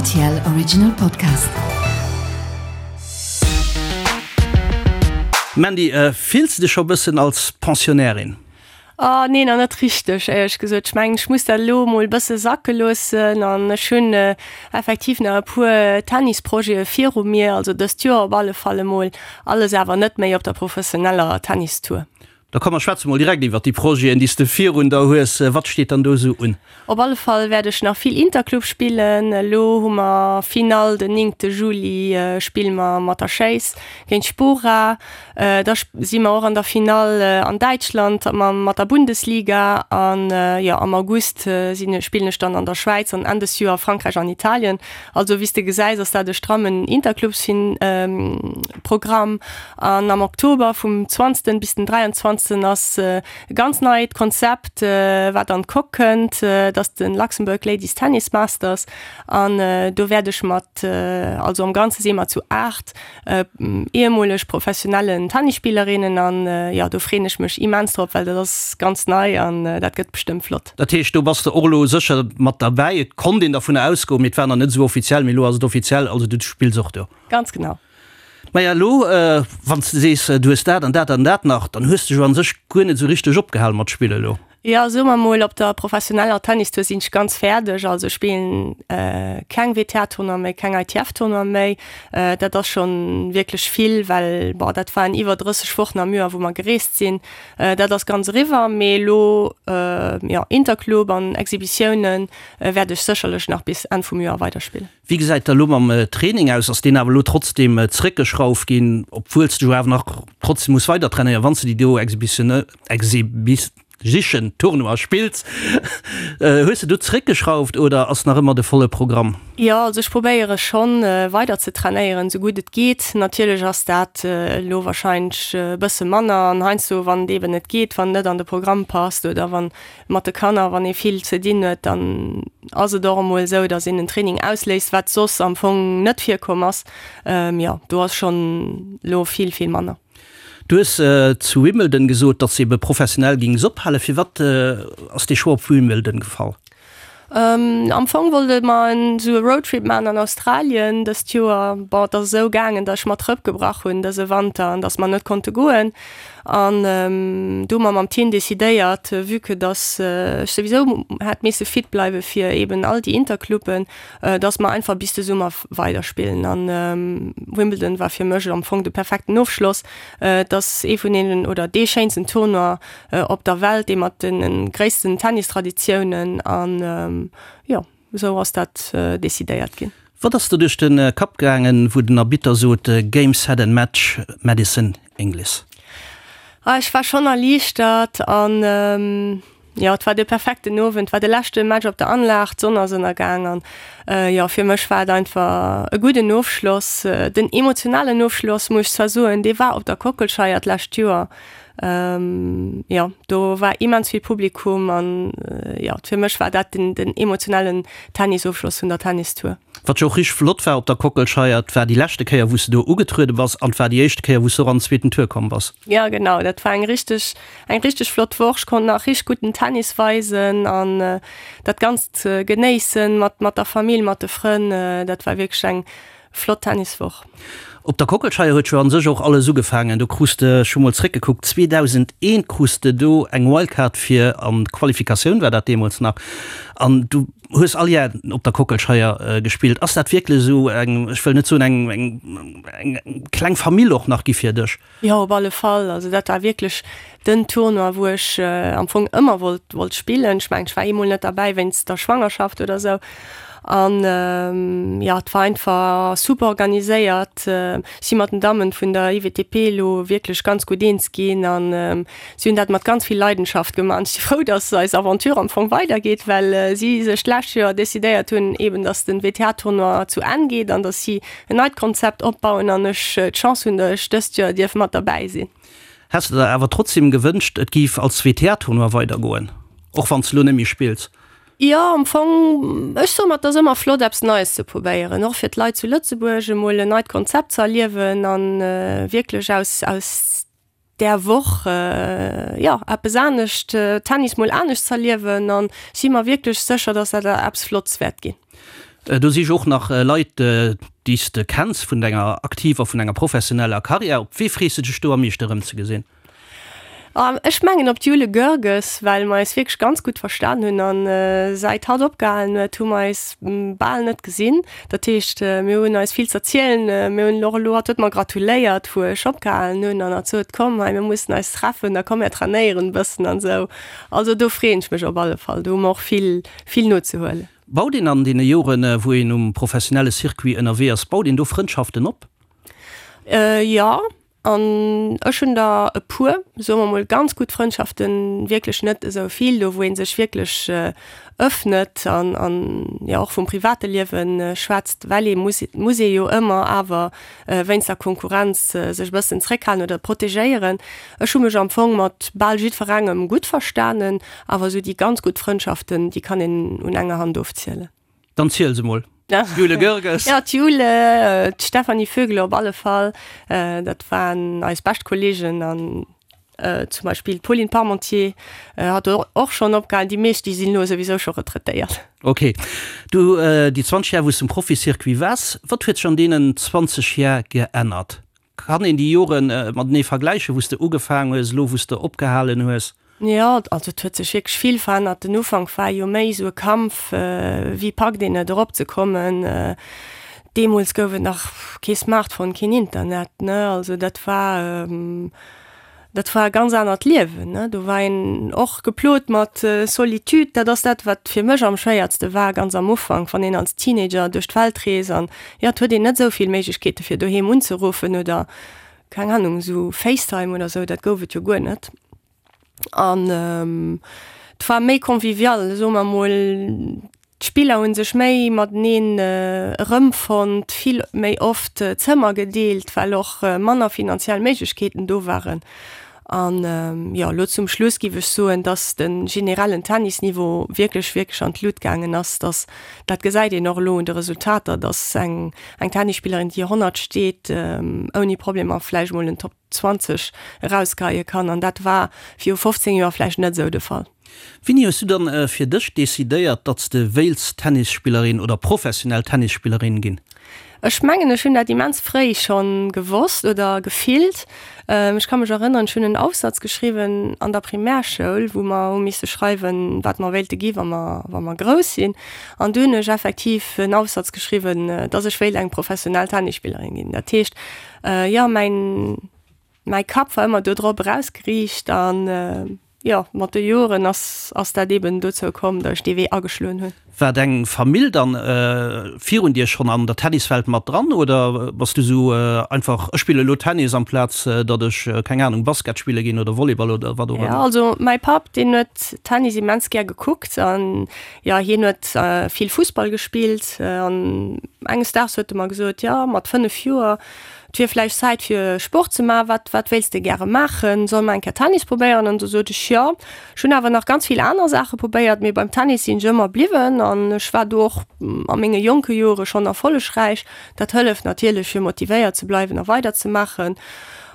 Rtl Original Podcast. Mandy, fills de dech scho bëssen als Pensionnairin? Oh nee, nach net richteg, éierlech gesot. Ech mengen, ech muss dat elo emol e bësse sacke loossen an ech hunn effektiv nach e puer Tennisprojete viru mir, also dëst Joer op alle Fall emol, alles awer net méi op der professioneller Tennistour. Da komm mer schwätze mol direkt iwwert déi Projeten, déi s de virun der hues. Wat steet dann do esou un? Op alle Fall wäert ech nach vill Interclub spillen. Elo hu mer Finall den néngte Juli spille mer mat der Schéiss géint Spora. Da si mer och an der Finall an Däitschland mat der Bundesliga an jo am August sinn spillen ech dann an der Schwäiz an Enn des Joer Frankräich an Italien. Also wéi s de gesäis ass dat e strammen Interclubs-Programm. An am Oktober vum 20 bis den 23 ass e ganz neit Konzept wat an d'Coque kënnt, dat ass de Luxembourg Ladies Tennis Masters an do wäert ech mat, also am Ganze si mer zu 8 Ehemoleg professionellen Tennisspillerinnen an jo do freen ech mech immens drop, well dat ass ganz nei an dat gëtt bestëmmt flott. Dat heescht do bass de och elo sécher mat derbäi. Et konnt een dervunner ausgoen, mee et war nach net esou offiziell, mee elo ass et offiziell, also du spills och do. Ganz genau. Maja elo wann s de sees du hues dat an dat an dat nach, dann hues de jo an sech guer net esou richteg opgehal mat spille elo. Jo, soe mer mol, op der professioneller Tennistour sinn ech ganz fäerdeg. Also ech spillen keng WTA-Tournoie méi, keng ITF-Tournoie méi. Dat ass schonn wierklech vill, well bon, dat waren iwwer 30 Wochen am Joer, wou mer gereest sinn. Dat ass ganz eriwwer. Mee elo, jo, Interclub an Exhibitiounen wäert ech sécherlech nach bis Enn vum Joer weiderspillen. Wéi gesäit da lo mam Training aus? Ass deen awer elo trotzdem zréckgeschrauft ginn, obwuel s de jo awer nach trotzdem muss weider trainéieren, wann s de déi do Exhibition Tournoi spills? Hues de do zréckgeschrauft oder ass nach ëmmer de volle Programm? Jo, also ech probéiere schonn weider ze trainéieren, esou gutt et geet. Natierlech ass dat elo warscheinlech e bësse manner an heiansdo, wann et eeben net geet, wann et net an de Programm passt oder wann Mat de Kanner, wann ee vill ze dinn huet, dann ass et och emol esou, datt een en Training ausléist, wat soss am Fong net virkomm ass. Jo, do ass schonn elo vill, vill manner. Du hues zu Wimbledon gesot, datt s de ebe professionell géings ophalen. Firwat ass dee Choix op Wimbledon gefall? Am Fong wollte mer esou e Roadtrip maachen an Australien dëst Joer. Bon, et ass esou gaangen, datt ech mer d'Rëpp gebrach hunn dëse Wanter an datt mer net konnte goen. An du hu mer mam Team decidéiert, vue que datt ech souwisou hätt misse fit bleiwe fir eben all déi Intercluben, datt mer einfach bis de Summer weiderspillen. An Wimbledon war fir mech am Fong de perfekten Ofschloss. Et ass ee vun deenen oder dee schéinsten Tournoi op der Welt, dee mat de gréissten Tennistraditiounen. An jo, esou ass dat decidéiert ginn. Wat ass der duerch de Kapp gaangen, wou den Arbitter sot Game, set and match, Madison Inglis? Ah, ech war schonn erliichtert an jo, et war de perfekten Owend, et war de leschte Match op der Anlag, d'Sonn ass ënnergaang an jo, fir mech war et einfach e gudden Ofschloss. Den emotionalen Ofschloss, muss ech zwar soen, dee war op der Kockelscheier d'lescht Joer. Jo, do war immens vill Publikum an jo, fir mech war dat den den emotionellen Tennisofschloss vun der Tennistour. Wat jo och richteg flott war op der Kockelscheier, et war déi leschte Kéier wou s de do ugetruede bass an et war déi éischte Kéier wou s de och an den zweeten Tour komm bass. Jo genau, dat war eng richteg eng richteg flott Woch. Ech konnt nach richteg gudden Tennis weisen an dat Ganzt genéissen mat mat der Famill, mat de Frënn. Dat war wierklech eng Flott Tenniswoch. Op der Kockelscheier huet jo an sech och alles ugefaangen. Do krus de, ech hu mol zréckgekuckt, 2001 krus de do eng Wildcard fir an d'Qualifikatioun war dat deemools nach, an du hues all Jar op der Kockelscheier gespillt. Ass dat wierklech esou eng, ech wëll net soen eng, eng, eng kleng Famill och nach gi fir dech? Jo, op alle Fall. Also dat war wierklech den Tournoi, wou ech am Fong ëmmer wollt, wollt spillen. Ech mengen, ech war eemol net derbäi wéinst der Schwangerschaft oder sou. An jo, et war einfach super organiséiert. Ech si mat den Dammen vun der IWTP elo wierklech ganz gutt eens ginn an si hunn dat mat ganz vill Leidenschaft gemaach. An ech si frou, dass eis Aventure am Fong weidergeet, well si sech d'lescht Joer decidéiert hunn, eeben dass den WTA-Tournoi zu Enn geet an dass si en neit Konzept opbauen an ech d'Chance hunn, datt ech dëst Joer dierf mat derbäi sinn. Häss de der awer trotzdem gewënscht, et géif als WTA-Tournoi weidergoen, och wann s de lo net méi spills? Jo, am Fong, ech soe mer, et ass ëmmer flott eppes Neies ze probéieren, och fir d'Leit zu Lëtzebuerg emol en neit Konzept ze erliewen an wierklech aus aus där Woch, jo, eppes anescht, Tennis mol anescht z'erliewen an si mer wierklech sécher, dass dat eppes Flottes wäert ginn. Do si jo och nach Leit, déi s de kenns vun denger aktiver, vun enger professioneller Karriär. Op wee frees de dech do am meeschte erëmzegesinn? Ech mengen op d'Jule Goerges, well mer eis wierklech ganz gutt verstan hunn an säit hatt opgehalen huet, hu mer eis bal net gesinn. Dat heescht, mir hunn eis vill z'erzielen. Mir hunn och elo, hatt huet mer gratuléiert, wou ech opgehalen hunn an hat sot, komm hei, mir mussen eis treffen, da komm mir trainéieren e bëssen an esou. Also do freeën ech mech op alle Fall, do hu mer och vill, vill nozehuelen. Baut een an deene Joren, wou een um professionelle Circuit ënnerwee ass, baut een do Frëndschaften op? Jo, an ech hunn der e puer, soe mer mol, ganz gutt Frëndschaften, wierklech net esou vill, do wou ee sech wierklech ëffnet an, an jo och vum private Liewe schwätzt, well ee muss, muss ee jo ëmmer awer wéinst der Konkurrenz sech e bëssen zréckhalen oder protegéieren. Ech hu mech am Fong mat bal jiddwerengem gutt verstanen, awer esou déi ganz gutt Frëndschaften, déi kann een un enger Hand ofzielen. Dann ziel se mol. D'Jule Goerges. Ja, d'Jule, d'Stéphanie Vögele op alle Fall. Dat waren eis bescht Kollegen an zum Beispill d'Pauline Parmentier hat och schonn opgehalen. Déi meescht, déi sinn elo souwisou scho retraitéiert. Ok. Du, déi 20 Jar, wou s de um Proficyircuit waars, wat huet sech an deenen 20 Jar geännert? Kann een déi Jore matenee vergläichen, wou s de ugefaangen hues, elo wou s de opgehalen hues? Jo, also et huet sech wierklech vill verännert. Den Ufank war jo méi esou e Kampf, wéi packt een et eropzekommen. Deemools gouf et nach kee Smartphone, keen Internet, ne, also dat war, Dat war e ganz anert Liewen, ne? Do war een och geplot mat Solitude. Dat ass dat, wat fir mech am schwéiertste war, ganz am Ufank, wann een als Teenager duerch d'Welt reest an, jo, et huet een net esou vill Méiglechkeete fir doheem unzeruffen oder, keng Ahnung, esou Facetime oder esou, dat gouf et jo guer net. An et war méi convivial, soe mer mol. D'Spiller hu sech méi mateneen erëmfonnt, vill méi oft Zëmmer gedeelt, well och manner finanziell Méiglechkeeten do waren. An jo, elo zum Schluss giff ech soen, dass de generellen Tennisniveau wierklech, wierklech an d'Lut gaangen ass. Dass, dat gesäit een och elo un de Resultater, dass eng, eng Tennisspillerin, déi 100 steet, ouni Problemer vläicht mol en Top 20 erausgeheie kann. An dat war viru 15 Joer vläicht net esou de Fall. Wéini hues du dann fir dech decidéiert, datt s de wéilts Tennisspillerin oder professionell Tennisspillerin ginn? Ech mengen, ech hunn dat immens fréi schonn gewosst oder gefillt. Ech ka mech erënneren, ech hunn en Aufsatz geschriwwen an der Primärschoul, wou mer hu misse schreiwen, wat mer wéilte gi wa mer, wa mer grouss sinn. An du hunn ech effektiv en Aufsatz geschriwwen, datt ech wéilt eng professionell Tennisspillerin ginn. Dat heescht, jo, mäin, mäi Kapp war ëmmer do drop erausgeriicht an, Jo, mat de Joren ass ass dat eben dozou komm, datt ech dee Wee ageschloen hunn. War deng Famill dann virun dir schonn an der Tenniswelt mat dran oder bass du sou einfach, ech spille lo Tennis amplaz datt ech, keng Anung, Basket spille ginn oder Volleyball oder wat och ëmmer? Jo, also mäi Papp deen huet Tennis immens gär gekuckt an jo, hien huet vill Fussball gespillt an enges Daags huet e mer gesot, jo mat 5 Joer, Et wier vläicht Zäit fir Sport ze maachen. Wat, wat wéilts de gäre maachen? Solle mer eng Kéier Tennis probéieren? An du sot ech, jo. Ech hunn awer nach ganz vill aner Saache probéiert, mee beim Tennis sinn ech ëmmer bliwwen an ech war do och a menge jonke Jore schonn erfollegräich. Dat hëlleft natierlech fir motivéiert ze bleiwen a weiderzemaachen.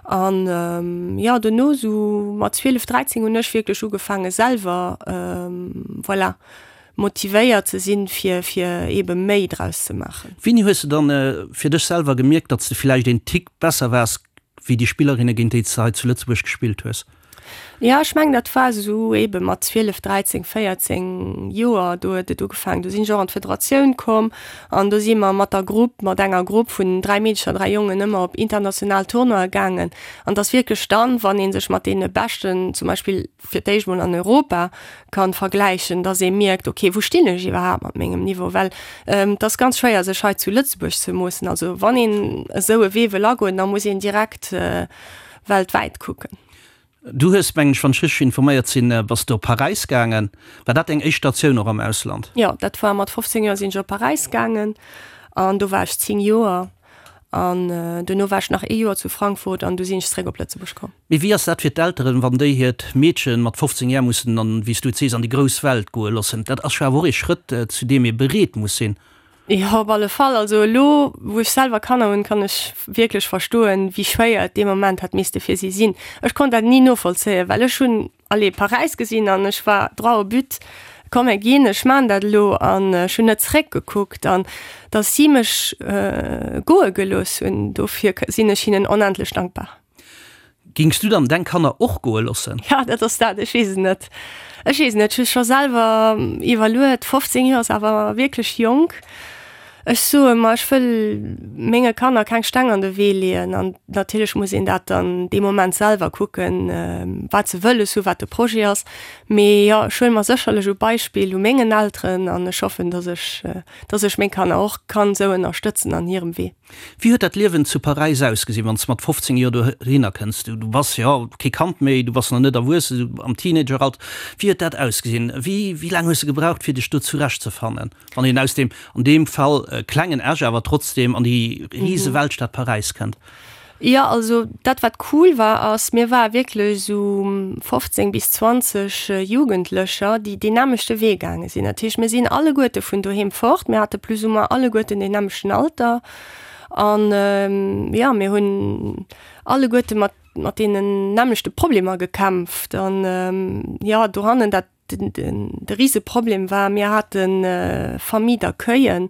An jo, dono sou mat 12, 13 hunn ech wierklech ugefaange selwer, voilà, motivéiert ze sinn, fir, fir eebe méi draus ze maachen. Wéini hues de dann fir dech selwer gemierkt, datt s de villäicht een Tick besser waars wéi déi Spillerinne géint déi s de hei zu Lëtzebuerg gespillt hues? Jo, ech mengen dat war esou eebe mat 12, 13, 14 Joer, do huet et ugefaangen. Do sinn ech och an d'Federatioun komm an do si mer mat der Grupp, mat enger Grupp vun 3 Meedecher, 3 Jongen ëmmer op international Tournoie gaangen. An et ass wierklech dann, wann ee sech mat deene Beschten zum Beispill fir d'éischt mol an Europa kann vergläichen, dass ee mierkt, okay, wou stinn ech iwwerhaapt mat mengem Niveau, well et ass ganz schwéier sech hei zu Lëtzebuerg ze moossen. Also wann een esou e Wee wëll agoen, da muss een direkt weltwäit kucken. Du hues, mengen ech, wann ech richteg informéiert sinn, bass de op Paräis gaangen. War dat deng éischt Statioun och am Ausland? Jo, dat war mat 15 Joer sinn ech op Paräis gaangen an do war ech 10 Joer. An duerno war ech nach ee Joer zu Frankfurt an du sinn ech zeréck op Lëtzebuerg komm. Mee wéi ass dat fir d'Elteren, wann déi hiert Meedchen mat 15 Jar mussen an, wéi s du et sees, an déi grouss Welt goe loossen? Dat ass jo awer och ee Schrëtt, zu deem ee bereet muss sinn. Jo, op alle Fall. Also elo, wou ech selwer Kanner hunn, kann ech wierklech verstoen, wéi schwéier et dee Moment hätt misste fir si sinn. Ech konnt dat ni novollzéien, well ech hunn allez, Paräis gesinn an ech war droit au but. Komm mir ginn, ech maan dat elo an ech hunn net zeréckgekuckt an dass si mech goe gelooss hunn, dofir sinn ech hinnen onendlech dankbar. Gings du dann deng Kanner och goe loossen? Ja, dat ass dat, ech weess et net. Ech weess et net, ech hu scho selwer iwwerluet, 15 Joer ass awer wierklech jonk. Ech soe mer, ech wëll menge Kanner keng Steng an de Wee leeën an natierlech muss een dat dann dee Moment selwer kucken, wat se wëlles hu, wat de Projet ass. Mee jo, ech huele mer sécherlech e Beispill u mengen Elteren an ech hoffen, dass ech, dass ech meng Kanner och kann esou ënnerstëtzen an hirem Wee. Wéi huet dat Liewen zu Paräis ausgesinn, wann s de mat 15 Joer dohinner kënns? Du bass jo kee Kand méi, du bass nach net erwuessen, am Teenageralter. Wéi huet dat ausgesinn? Wéi laang hues de gebraucht, fir dech do zurechtzefannen, wann een aus deem, an deem Fall klengen Esch, awer trotzdem an déi rise Weltstad Paräis kënnt? Jo, also dat wat cool war ass, mir ware wierklech esou 15 bis 20 Jugendlecher, déi deen nämmlechte Wee gaange sinn. Dat heescht, mir sinn alleguerte vun doheem fort, mir hate plus ou moins alleguerten deen nämmlechten Alter an jo, mir hunn alleguerte mat mat deenen nämmlechte Problemer gekämpft an jo, dohannen dat De Riseproblem war, mir hate Famille d'accueillen,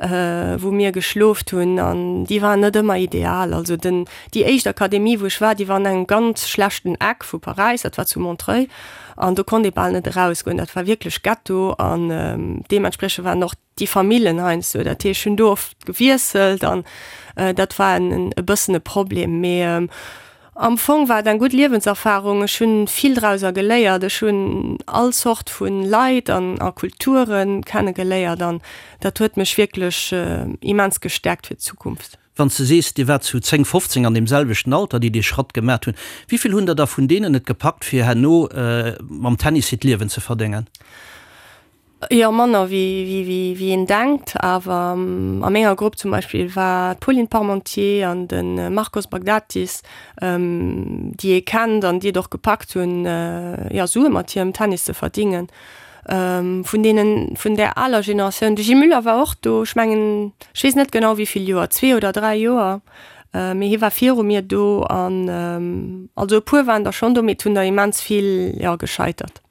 wou mir geschloft hunn an déi waren net ëmmer ideal. Also den, déi éischt Akademie wou ech war, déi war an engem ganz schlechten Eck vu Paräis, dat war zu Montreuil an do konnt ee bal net erausgoen. Dat war wierklech Ghetto an deementspriechend waren och déi Famillen heiansdo, dat heescht, ech hunn do oft gewiesselt an dat war en e bëssen e Problem. Mee am Fong war et eng gutt Liewenserfarung, ech hunn vill drauser geléiert, ech hunn all Zort vu Leit an a Kulture kenne geléiert an dat huet mech wierklech immens gestäerkt fir d'Zukunft. Wann s de sees, Dir waart zu 10, 15 an deem selwechten Alter, déi dee Schratt gemat hunn, wéi vill hunn der da vun deenen et gepackt, fir herno mam Tennis hiert Liewen ze verdéngen? Jo, manner wéi een denkt. Awer a menger Grupp zum Beispill war d'Pauline Parmentier an de Marcos Baghdatis, déi ee kennt an déi et och gepackt hunn, jo, Sue mat hirem Tennis ze verdingen. Vun deenen, vun där aler Generatioun, de Gilles Muller war och do, ech mengen, ech weess net genau wéi vill Joer, zwee oder dräi Joer, mee hie war viru mir do an also e puer waren der schonn do, mee et hunn der immens vill, jo, gescheitert.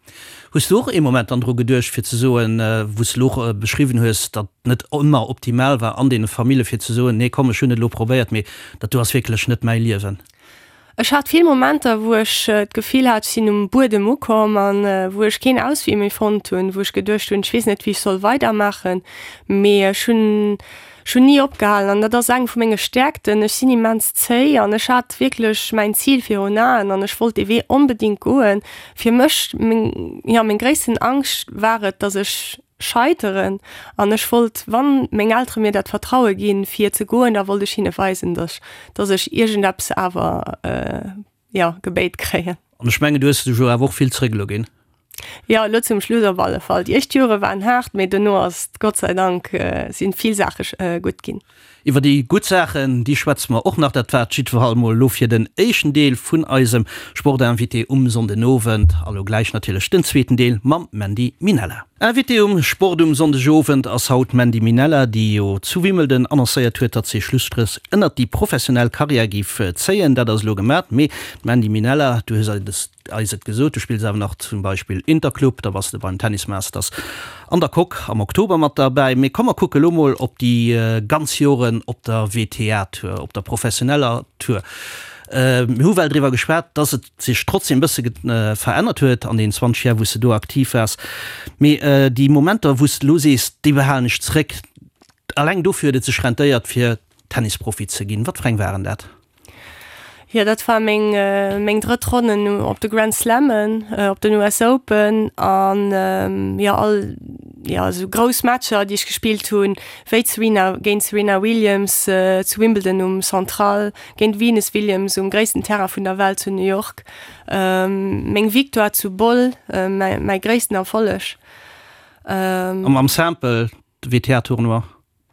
Hues du och ee Moment dann dru geduecht fir ze soen, wou s de elo och beschriwwen hues, datt et net ëmmer optimal war an deene Famille fir ze soen, nee komm ech hunn et elo probéiert, mee dat do ass wierklech net mäi Liewen? Ech hat vill Momenter, wou ech d'Gefill hat, ech sinn um Buedem ukomm an wou ech keen Auswee méi fonnt hunn, wou ech geduecht hunn, ech weess net wéi ech soll weidermaachen, mee ech hunn Ech hunn ni opgehalen an dat ass eng vu menge Stäerkten. Ech sinn immens zéi an ech hat wierklech mäin Zil virun Aen an ech wollt dee Wee onbedéngt goen. Fir mech, meng, jo, meng gréissten Angscht war et, dass ech scheiteren an ech wollt, wann meng Eltere mir dat Vertraue ginn, fir ze goen, da wollt ech hinne weisen, dass, dass ech iergendeppes awer, jo, gebéit kréien. An ech mengen, du hues dech jo awer och vill zréck elo ginn. Jo, elo zum Schluss op alle Fall. Déi éischt Jore waren haart, mee dono ass et Gott sei Dank si vill Saache gutt ginn. Iwwer déi gutt Saachen, déi schwätze mer och nach. Dat war et jiddwerfall mol elo fir den éischten Deel vun eisem Sportinvité um Sonndenowend. A lo gläich natierlech den zweeten Deel mam Mandy Minella. Invité um Sport um Sonndegowend ass haut d'Mandy Minella, déi jo zu Wimbledon annoncéiert huet, datt si Schlusstréch ënnert déi professionell Karriär géif zéien. Dat ass elo gemat. Mee d'Mandy Minella, du hues eis et gesot, du spills awer nach zum Beispill Interclub, da bass de beim Tennis Masters an der Coque am Oktober mat derbäi. Mee komm mer kucke lo mol op déi ganz Joren op der WTA-Tour, op der professioneller Tour. Mir hu well driwwer geschwat, datt et sech trotzdem e bësse verännert huet an den 20 Jar wou s de do aktiv waars. Mee déi Momenter wou s de elo sees, déi behalen ech zréck, alleng dofir huet et sech rentéiert fir Tennisprofi ze ginn. Wat fir eng waren dat? Jo, dat war meng meng drëtt Ronnen op de Grand Slammen, op den US Open an jo all jo esou grouss Matcher déi ech gespillt hunn, wéi d'Serena géint d'Serena Williams zu Wimbledon um Central, Géint Venus Williams um gréissten Terrain vun der Welt zu New York. Meng Victoire zu Boll, mäi gréissten Erfolleg. A mam Simple, de WTA-Tournoi,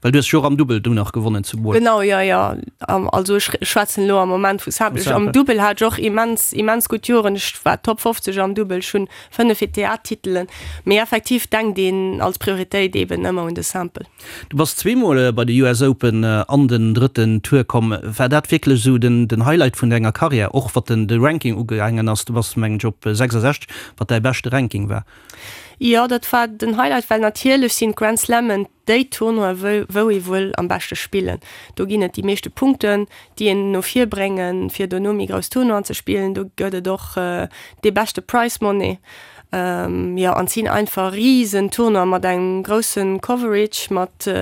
well du hues jo och am Dubbel du nach gewonnen zu Boll. Genau, jo, jo. Also ech schwätzen elo am Moment vu Simple. Am Dubbel hat ech och immens, immens gutt Joren. Ech war Top 50 am Dubbel, ech hunn 5 WTA-Titelen. Mee effektiv denkt een als Prioritéit eeben ëmmer un de Simple. Du bass zweemol bei de US Open an den drëtten Tour komm. War dat wierklech esou den Highlight vun denger Karriär, och wat de Ranking ugaangen ass? Du bass mengen ech op 66, wat däi beschte Ranking war. Jo, dat war den Highlight, well natierlech sinn d'Grand Slammen déi Tournoien, wou wou ee wuel am beschte spillen. Do ginn et déi meeschte Punkten, déi een no vir bréngen, fir dono méi grouss Tournoien ze spillen. Do gëtt et och dee beschte Prize Money. Jo, an et sinn einfach risen Tournoien mat engem grousse Coverage, mat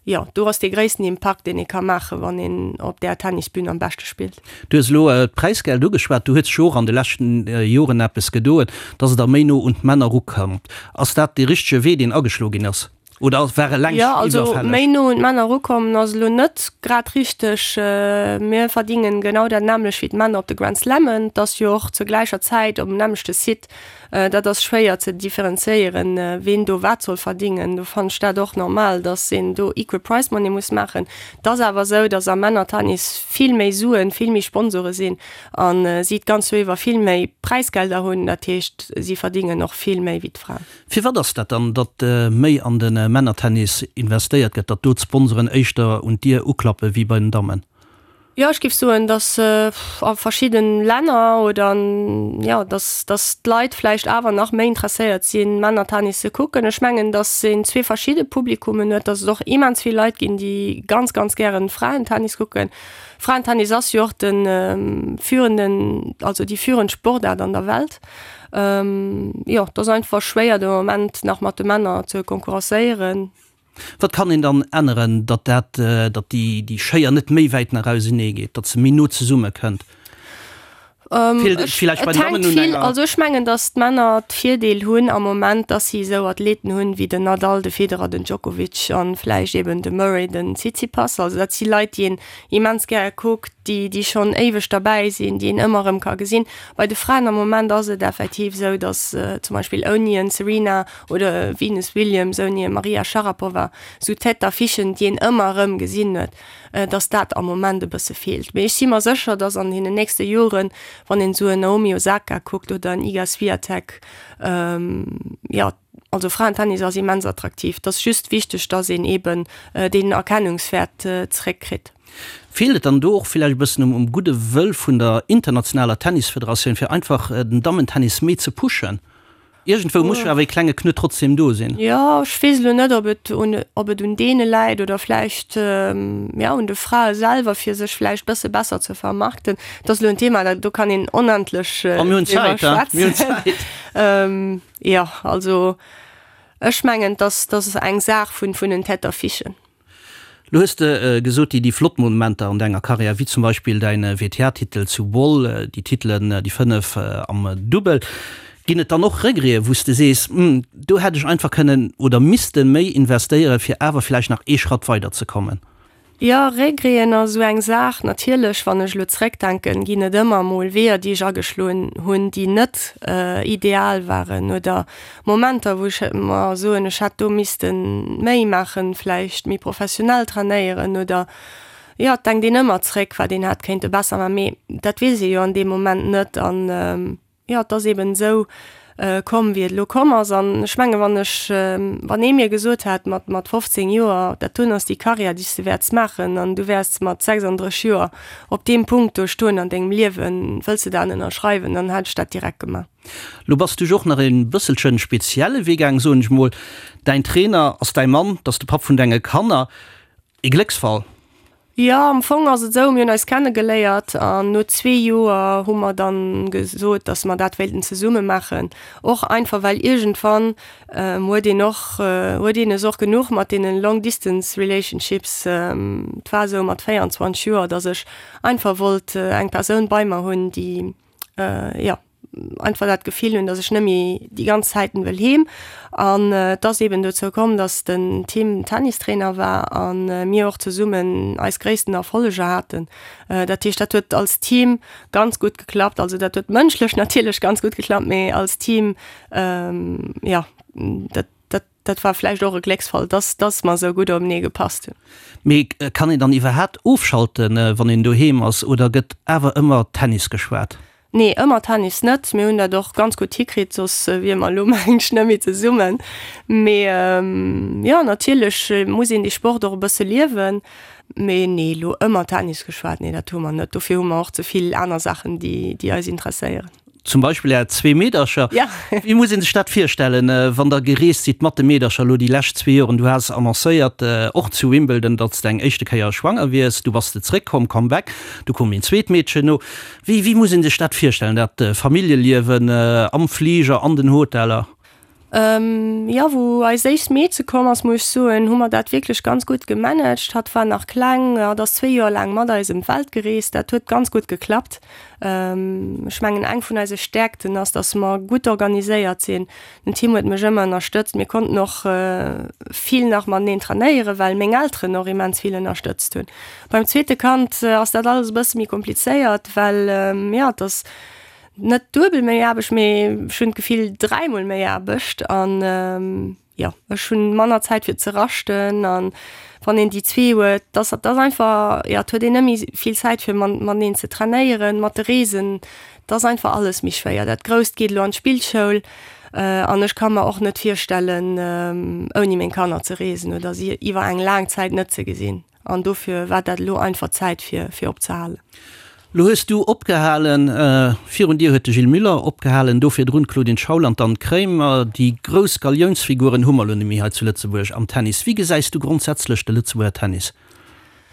Jo, do ass dee gréissten Impakt, deen ee ka maachen, wann een op där Tennisbün am beschte spillt. Du hues elo d'Präisgeld ugeschwat. Do huet sech jo och an de leschten Joren eppes gedoen, dass et da méi no un d'Männer erukëmmt. Ass dat dee richtege Wee, deen ageschloe ginn ass, oder war e längst Jo, also iwwerfälleg? méi no un d'Männer erukommen ass elo net grad richteg. Mir verdingen genau dat nämmlecht wéi d'Männer op de Grand Slammen. Et ass jo och zur gläicher Zäit op dem nämmlechte Site. Dat ass schwéier ze differenzéieren, ween do wat soll verdingen. Do fannen ech dat och normal, datt een do equal prize money muss maachen. Et ass awer esou, datt am Männertennis vill méi Suen, vill méi Sponsore sinn a si d'ganz Joer iwwer vill méi Präisgelder hunn. Dat heescht, si verdingen och vill méi wéi d'Fraen. Firwat ass dat dann, datt méi an de Männertennis investéiert gëtt, datt do d'Sponsoren éischter un d'Dier uklappe wéi bei den Dammen? Jo, ech géif soen, datt a verschidden Länner oder an, jo, datt, datt d'Leit vläicht awer nach méi interesséiert sinn, Männertennis ze kucken. Ech mengen, datt een zwee verschidde Publikummen huet, datt et och immens vill Leit ginn, déi ganz, ganz gären Fraentennis kucken. Fraentennis ass jo och de führenden, also déi führend Sportaart an der Welt. Jo, et ass einfach schwéier de Moment nach mat de Männer ze konkurrenzéieren. Wat kann een dann änneren, datt dat, datt déi, déi Schéier net méi wäit nach ausenee geet, datt se méi no zesumme kënnt? Feelt et villäicht bei den Dammen un enger. Also ech mengen, datt d'Männer d'Virdeel hunn am Moment, datt si esou Athleten hunn wéi den Nadal, de Federer, den Djokovic an vläicht eben de Murray, den Tsitsipas. Also dat si Leit, déi een immens gäre kuckt, déi, déi schonn éiweg derbäi sinn, déi een ëmmer erëm ka gesinn. Bei de Fraen am Moment ass et effektiv esou, datt zum Beispill ouni en Serena Oder Venus Williams ouni Maria Sharapova, sou Tête d'affichen, déi een ëmmer erëm gesinn huet, dass dat am Moment e bësse feelt. Mee ech si mer sécher, dass an deenen nächste Joren, wann een esou en Naomi Osaka kuckt oder en Iga Swiatek, jo, also Fraentennis ass immens attraktiv. Et ass just wichteg, dass een eeben deen Erkennungswäert zeréckkritt. Feelt et dann do och villäicht e bëssen um gudde Wëll vun der internationaler Tennisfederatioun, fir einfach den Dammentennis méi ze pushen? Iergendwou muss jo awer ee klenge Knuet trotzdem do sinn. Jo, ech weess elo net, ob et un, ob et un deene läit oder vläicht, jo, un de Frae selwer, fir sech vläicht bësse besser ze vermarkten. Dat ass elo en Thema, dat, do kann een onendlech driwwer schwätzen. Jo, also ech mengen, dass, dass eng Saach vun, vun den Tête d'affichen. Lo hues de gesot, déi flott Momenter an denger Karriär, wéi zum Beispill däin WTA-Titel zu Bull, déi Titelen, déi 5 am Dubbel. Ginn et dann och Regreten, wou s de sees, Hm, do hätt ech einfach kënnen oder misste méi investéieren, fir awer vläicht nach ee Schratt weider ze kommen? Jo, Regreten ass esou eng Saach. Natierlech, wann ech elo zréckdenken, ginn et ëmmer emol Weeër, déi ech ageschloen hunn, déi net ideal waren oder Momenter, wou ech mer soen, ech hätt do misste méi maachen, vläicht méi professionell trainéieren oder, jo, et denkt een ëmmer zréck, wat een hätt kéinte besser maachen, mee dat weess ee jo an deem Moment net an, jo, et ass eeben esou komm, wéi et elo komm ass. An ech mengen, wann ech, wann ee mir gesot hätt mat, mat 15 Joer, dat doen ass déi Karriär, déi s de wäerts maachen an du wäers mat 36 Joer op deem Punkt do stoen an dengem Liewen, wëlls de dat ënnerschreiwen, dann hätt ech dat direkt gemaach. Lo bass du jo och nach e bësselchen spezielle Wee gaang, soen ech mol. Däin Trainer ass däi Mann, 't ass de Papp vun denge Kanner. E Glécksfall? Jo, am Fong ass et esou, mir hunn eis kennegeléiert an no zwee Joer hu mer dann gesot, dass mer dat wéilten zesumme maachen. Och einfach well iergendwann huet een och, huet een es och genuch mat deenen long distance relationships. Et war esou mat 24 Joer, dass ech einfach wollt eng Persoun bei mer hunn, déi, jo, einfach dat Gefill hunn, dass ech net méi déi ganz Zäiten wëll heem. An et ass eben dozou komm, dass den Tim Tennistrainer war a mir och zesummen eis gréissten Erfolleger haten. Dat heescht, dat huet als Team ganz gutt geklappt. Also dat huet mënschlech natierlech ganz gutt geklappt, mee als Team, jo, dat, dat, dat war vläicht och e Glécksfall, dass, dass mer esou gutt openee gepasst hunn. Mee kann een dann iwwerhaapt ofschalten, wann een doheem ass, oder gëtt awer ëmmer Tennis geschwat? Nee, ëmmer Tennis net. Mir hunn dat och ganz gutt hikritt, soss wier mer elo mengen ech net méi zesummen. Mee jo, natierlech muss een dee Sport och e bësse liewen. Mee nee, elo ëmmer Tennis geschwat, nee dat hu mer net. Dofir hu mer och ze vill aner Saachen, déi, déi eis interesséieren. Zum Beispill Är zwee Meedercher. Ja. Wéi muss ee sech dat virstellen, wann Der gereest sidd mat de Meedercher elo déi lescht zwee Joren? Du has annoncéiert, och zu Wimbledon, datt s de eng éischte Kéier schwanger wiers. Du bass de zréckkomm, Comeback. Du koum een zweet Meedchen no. Wéi, wéi muss ee sech dat virstellen, dat Familljeliewen am Fliger, an den Hoteller? Jo, wou eis éischt Meedche komm ass, muss ech soen, hu mer dat wierklech ganz gutt gemanagt. Hatt war nach kleng, hatt ass zwee Joer laang mat eis ëm d'Welt gereest. Dat huet ganz gutt geklappt. Ech mengen, eng vun eise Stäerkten ass, dass mer gutt organiséiert sinn. Den Tim huet mech ëmmer ënnerstëtzt. Mir konnten och vill nach mateneen trainéieren, well meng Elteren och immens vill ënnerstëtzt hunn. Beim zweete Kand ass dat alles e bësse méi komplizéiert, well, jo, et ass, Net duebel méi Aarbecht, mee ech hunn d'Gefill dräimol méi Aarbecht an jo, ech hunn manner Zäit fir ze raschten an wann een déi zwee huet, dass dat ass einfach, jo, et huet een net méi vill Zäit fir mateneen ze trainéieren, mat de Reesen, et ass einfach alles méi schwéier. Dat Grousst geet elo an d'Spillschoul an ech ka mer och net virstellen ouni meng Kanner ze reesen oder si iwwer eng laang Zäit net ze gesinn. An dofir war dat elo einfach Zäit fir fir opzehalen. Lo hues du opgehalen, virun dir huet de Gilles Muller opgehalen, do virdrun d'Claudine Schaul an d'Anne Kremer. Déi grouss Galiounsfiguren hu mer elo net méi hei zu Lëtzebuerg am Tennis. Wéi gesäis du grondsätzlech de Lëtzebuerger Tennis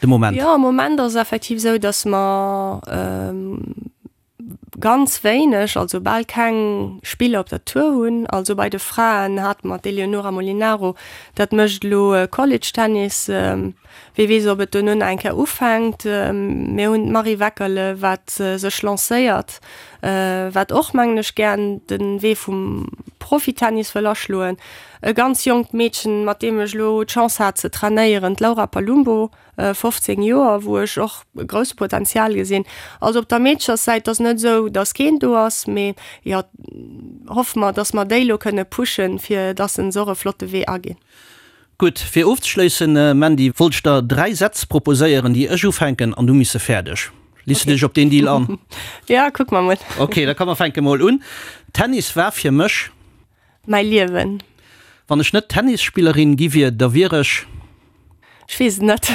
de Moment? Jo, am Moment ass et effektiv esou, datt mer ganz wéineg, also bal keng Spiller op der Tour hunn. Also bei de Fraen hate mer d'Eleonora Molinaro, dat mécht elo College Tennis. Wie weess, ob et dono nach eng Kéier ufänkt. Mir hunn d'Marie Weckerle, wat sech lancéiert, wat och, mengen ech, gären de Wee vum Profitennis wëll aschloen. E ganz jonkt Meedchen, mat deem ech elo d'Chance hat ze trainéieren, d'Laura Palumbo. 15 Joer, wou ech och e grousse Potenzial gesinn. Also op der Meedcherssäit ass net esou, datt keen do ass, mee jo, hoffe mer, datt mer déi elo kënne pushen, fir datt se och e flotte Wee aginn. Gutt, fir ofzeschléissen, Mandy, wollt ech der 3 Sätz proposéieren, déi ech ufänken an du miss se fäerdeg. Liss du dech op deen Deal an? Ja, kucke mer mol. Ok, da komm mer fänke mol un. Tennis war fir mech. Mäi Liewen. Wann ech net Tennisspillerin gi wier, da wier ech. Ech weess et net.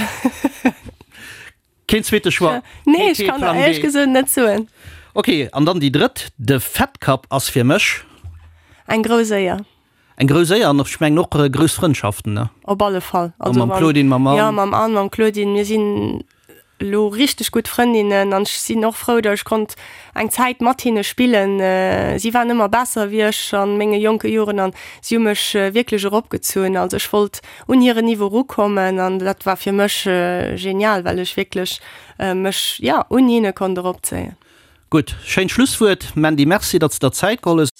Keen zweete Choix? Nee, ech kann der éierlech gesot net soen. Ok, an dann déi drëtt, De Fed Cup ass fir mech. Eng grouss Éier. Eng grouss Éier an ech mengen och grouss Frëndschaften, ne? Op alle Fall. Also mam Claudine, mam Anne. Jo, mam Anne, mam Claudine. Mir sinn elo richteg gutt Frëndinnen an ech sinn och frou, datt ech konnt eng Zäit mat hinne spillen. Si waren ëmmer besser wéi ech a menge jonke Joren an si hu mech wierklech eropgezunn. Also ech wollt un hiren Niveau erukommen an dat war fir mech genial, well ech wierklech mech, jo, un hinne konnt eropzéien. Gutt, schéint Schlusswuert. Mandy, Merci, datt s de der Zäit geholl hues.